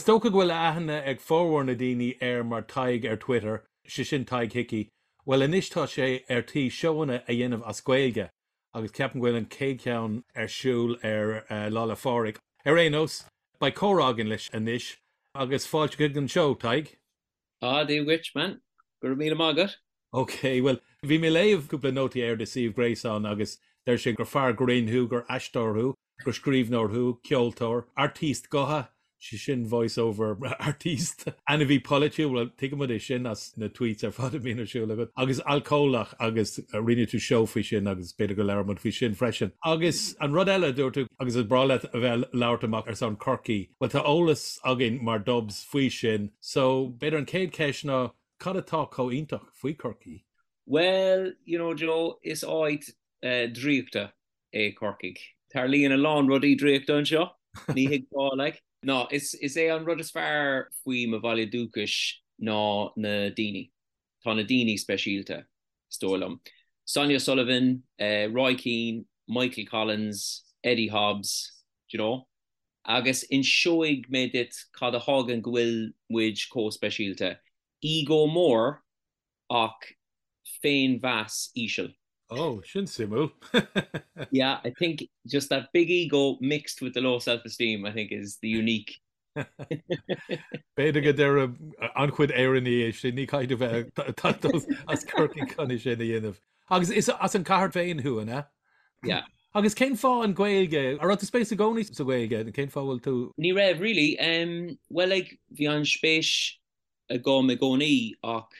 Is dócha go bhfuil aithne ag formhór na daoine air mar Tadhg ar Twitter, sé sin Tadhg Hickey. Bhuel anois tá sé ar tí seóanna a dhéanamh as Gaeilge agus ceapaim go bhfuil an chéad cheann ar siúl ar Lá 'le Phádraig. Ar aon nós, beidh comhrá againn leis anois agus fáilte chuig an seó, Tadhg. Ah, Dia dhuit, man. Go raibh míle maith agat. Ok, bhuel, bhí mé ag léamh cúpla nótaí ar do suíomh gréasáin agus deir sé gur fear grinn thú, gur aisteoir thú, gur scríbhneoir thú, ceoltóir, artiste gutha, sé sin voice over artiste, ainmhí polaitiúil, bhuel, tuigimid é sin as na tweets ar fad a bhíonn ar siúl agat, agus alcólach agus rinne tú seó faoi sin agus b'fhéidir go labhróidh muid faoi sin freisin. Agus an rud eile a dúirt tú, agus is breá leat a bheith ag labhairt amach ar son Chorcaí, bhuel tá eolas againn mar Dubs faoi sin, so b'fhéidir an chéad cheist ná cad atá chomh iontach faoi Chorcaí? Bhuel, you know Joe, is áit draíochta é Corcaigh. Tarlaíonn a lán rudaí draíochta anseo, ní thuigfeá, like. No, is is é an rud is fearr faoi mo bhaile dúchais ná na daoine. Tá na daoine speisialta, is dóigh liom. Sonia Sullivan, Roy Keane, Michael Collins, Eddie Hobbs, do you know? Agus inseoidh mé duit cad a thagann go bhfuil muid chomh speisialta. Ego mór ach féinmheas íseal. Oh, sin suimiúil. Yeah, I think just that big ego mixed with the low self-esteem, I think is the unique. B'fhéidir go ndéarfadh an-chuid Éireannaigh é sin, ní caithfidh tú bheith ag teacht as Corcaigh chun é sin a dhéanamh. Agus is as an chathair féin thú, an ea? Yeah. Agus cén fáth an Ghaeilge? An raibh tú spéis i gcónaí sa Ghaeilge? Cén fáth bhfuil tú? Ní raibh, really. Um, well, like, bhí an spéis agam i gcónaí ach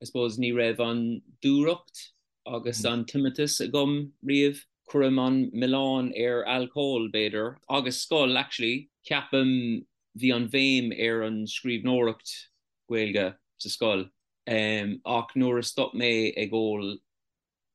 I suppose ní raibh an dúthracht agus an tiomantas agam riamh. Cuirim an milleán ar alcól, b'fhéidir, agus scoil actually. Ceapaim bhí an bhéim ar an scríbhneoireacht Gaeilge sa scoil ach nuair a stop mé ag ól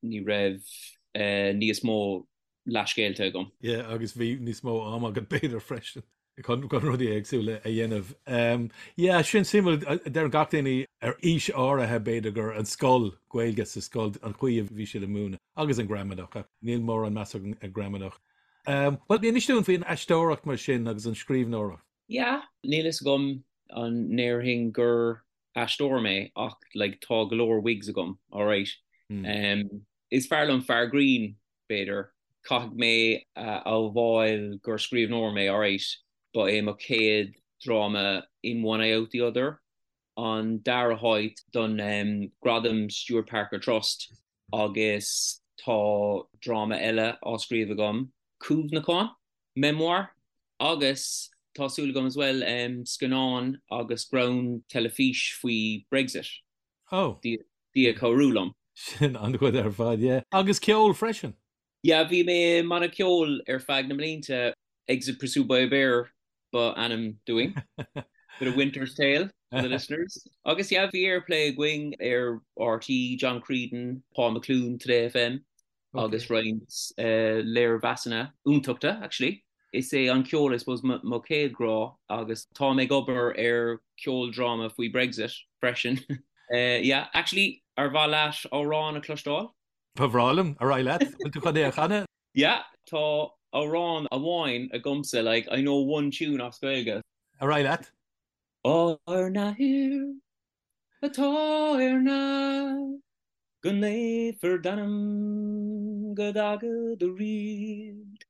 ní raibh níos mó leathscéalta agam. Yeah, agus bhí níos mó ama agat b'fhéidir freisin chun rudaí éagsúla a dhéanamh. Yeah, sin suimiúil, deireann gach duine ar aois áirithe b'fhéidir gur an scoil, Gaeilge sa scoil, an chaoi a bhí siad ag múineadh agus an gramadach ach níl mórán meas agam ar gramadach. Bhuel, inis dúinn faoin aisteoireacht mar sin agus an scríbhneoireacht. Yeah, níl fhios agam an ndéarfainn gur aisteoir mé ach like tá go leor wigs agam, alright. Um, is fearr liom fear grinn, b'fhéidir. Caithfidh mé a admháil gur scríbhneoir mé, alright. Ba é mo chéad dráma In One Eye Out the Other an dara háit don um, Gradam Stewart Parker Trust agus tá dráma eile á scríobh agam, Cuimhneachán. memoir, agus tá súil agam as well scannán agus greann teilifís faoi Brexit. Oh. Dia ag cabhrú liom. Sin an-chuid ar fad, yeah. Agus ceol freisin? Yeah, bhí mé i mbanna ceoil ar feadh na mblianta, Exit Pursued by a Bear ba ainm dúinn. Bit of Winter's Tale for the listeners. Agus yeah, bhí airplay againn ar RTÉ, John Creedon, Paul McLoone, Today FM. agus roinnt léirmheasanna iontacha actually. Is é an ceol I suppose mo chéad ghrá agus táim ag obair ar ceoldráma faoi Brexit freisin. Yeah, actually ar mhaith leat amhrán a chloisteáil? Ba bhreá liom, ar aghaidh leat, bhfuil tú chun é a chanadh? Yeah, tá amhrán amháin agamsa, like I know one tune as Gaeilge. Ar aghaidh leat. Ár nAthair atá ar neamh, go naofar d'ainm, go dtaga do ríocht,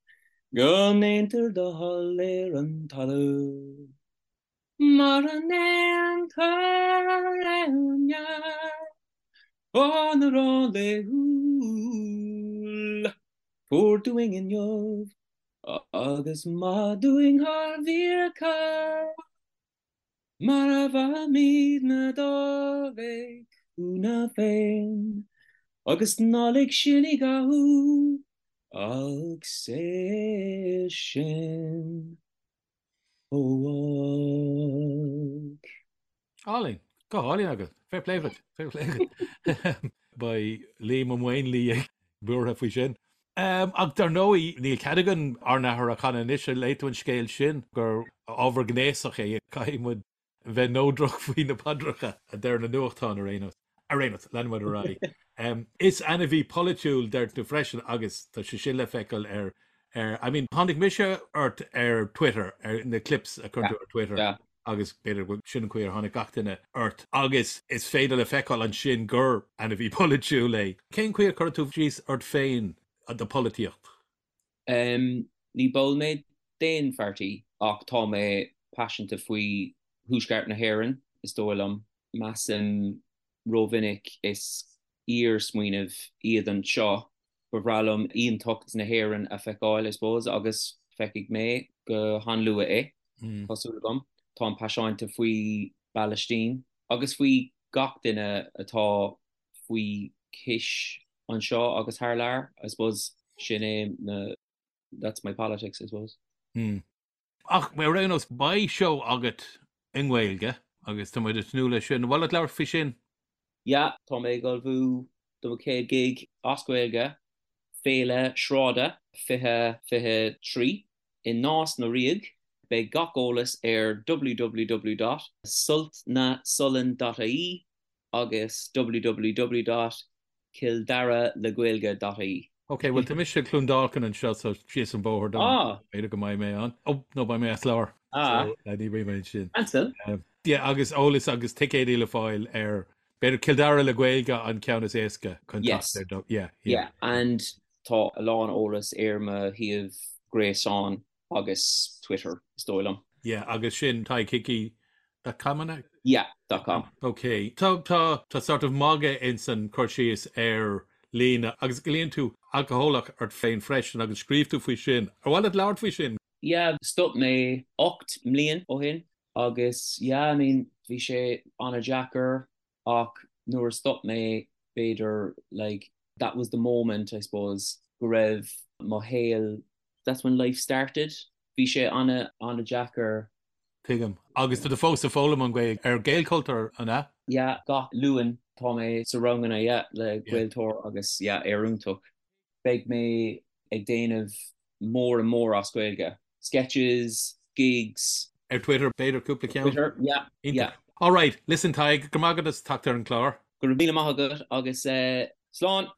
go ndéantar do thoil ar an talamh mar a ndéantar ar neamh. Ár n-arán laethúil, tabhair dúinn inniu agus maith dúinn ár bhfiacha. Mar a mhaithimidne dár bhféichiúna féin, agus ná lig sinn i gcathú, ach saor sinn ó olc. Álainn. Go hálainn agat. Fair play duit. Fair play duit. Beidh Liam Ó Maonlaí buartha faoi sin. Ach dar ndóigh, níl cead againn Ár nAthair a chanadh anois. Ar léigh tú an scéal sin gur ábhar gnéasach é? Caithfidh muid bheith neodrach faoi na paidreacha, a deir na nuachtáin ar aon nós. Ar aon nós, leanfaidh muid ar aghaidh. Is ainmhí polaitiúil, deir tú freisin, agus tá sé sin le feiceáil ar, ar, I mean, tháinig mise ort ar Twitter, ar na clips a chuireann tú ar Twitter. Agus b'fhéidir go sin an chaoi ar tháinig gach duine ort. Agus is féidir le feiceáil ansin gur ainmhí polaitiúil é. Cén chaoi a chuirfeadh tú síos ort féin do pholaitíocht? Ní ball mé d'aon pháirtí ach tá mé paiseanta faoi Thuaisceart na hÉireann, is dóigh liom. Measaim rómhinic is iar-smaoineamh iad anseo. Ba bhreá liom aontacht na hÉireann a feiceáil, I suppose, agus feicfidh mé go han-luath é, tá súil agam. Táim paiseanta faoi bPalaistín agus faoi gach duine atá faoi chois anseo agus thar lear, I suppose. Sin é na, that's my politics, I suppose. Ach ar aon nós, beidh seó agat i nGaeilge agus tá muid ag tnúth leis sin. An mhaith leat labhairt faoi sin? Yeah, tá mé ag ullmhú do mo chéad gig as Gaeilge, Féile Sráide 2023 i Nás na Ríogh. Beidh gach eolas ar www dot sultnasollán dot ie agus www dot cilldaralegaeilge dot ie. Ok, bhuel tá mise i gCluain Dolcáin anseo so síos an bóthar dom. Ah! B'fhéidir go mbeidh mé ann. Oh, no, beidh mé as láthair. Ah! So, ní bheidh mé ansin. Ansin? Yeah, agus eolas agus ticéidí le fáil ar, b'fhéidir Cill Dara le Gaeilge an ceann is éasca chun Yes. teacht ar do, yeah, yeah. Yeah, and tá a lán eolas ar mo shuíomh gréasáin agus Twitter, is dóigh liom. Yeah, agus sin Tadhg Hickey dot com an ea? Yeah, dot com. Ok. Tá, tá, tá sort of magadh ins an cur síos ar líne agus glaonn tú alcólach ort féin freisin agus scríobh tú faoi sin. Ar mhaith leat labhairt faoi sin? Yeah, stop mé 8 mbliain ó shin agus yeah, I mean, bhí sé an-deacair ach nuair a stop mé b'fhéidir like that was the moment I suppose go raibh mo shaol that's when life started. Bhí sé ana ana-deacair. Tuigim. Agus tá tú fós ag foghlaim an Ghaeilge ar Gaelchultúr, an ea? Yeah, gach Luan tá mé sa ranganna, yeah, le Gaeltóir agus yeah, iontach. Beidh mé ag déanamh more and more as Gaeilge. Sketches, gigs. Ar Twitter, b'fhéidir cúpla ceann? Twitter, yeah, yeah. All right, listen Tadhg, go raibh maith agat as teacht ar an chlár. Go raibh míle maith agat agus slán!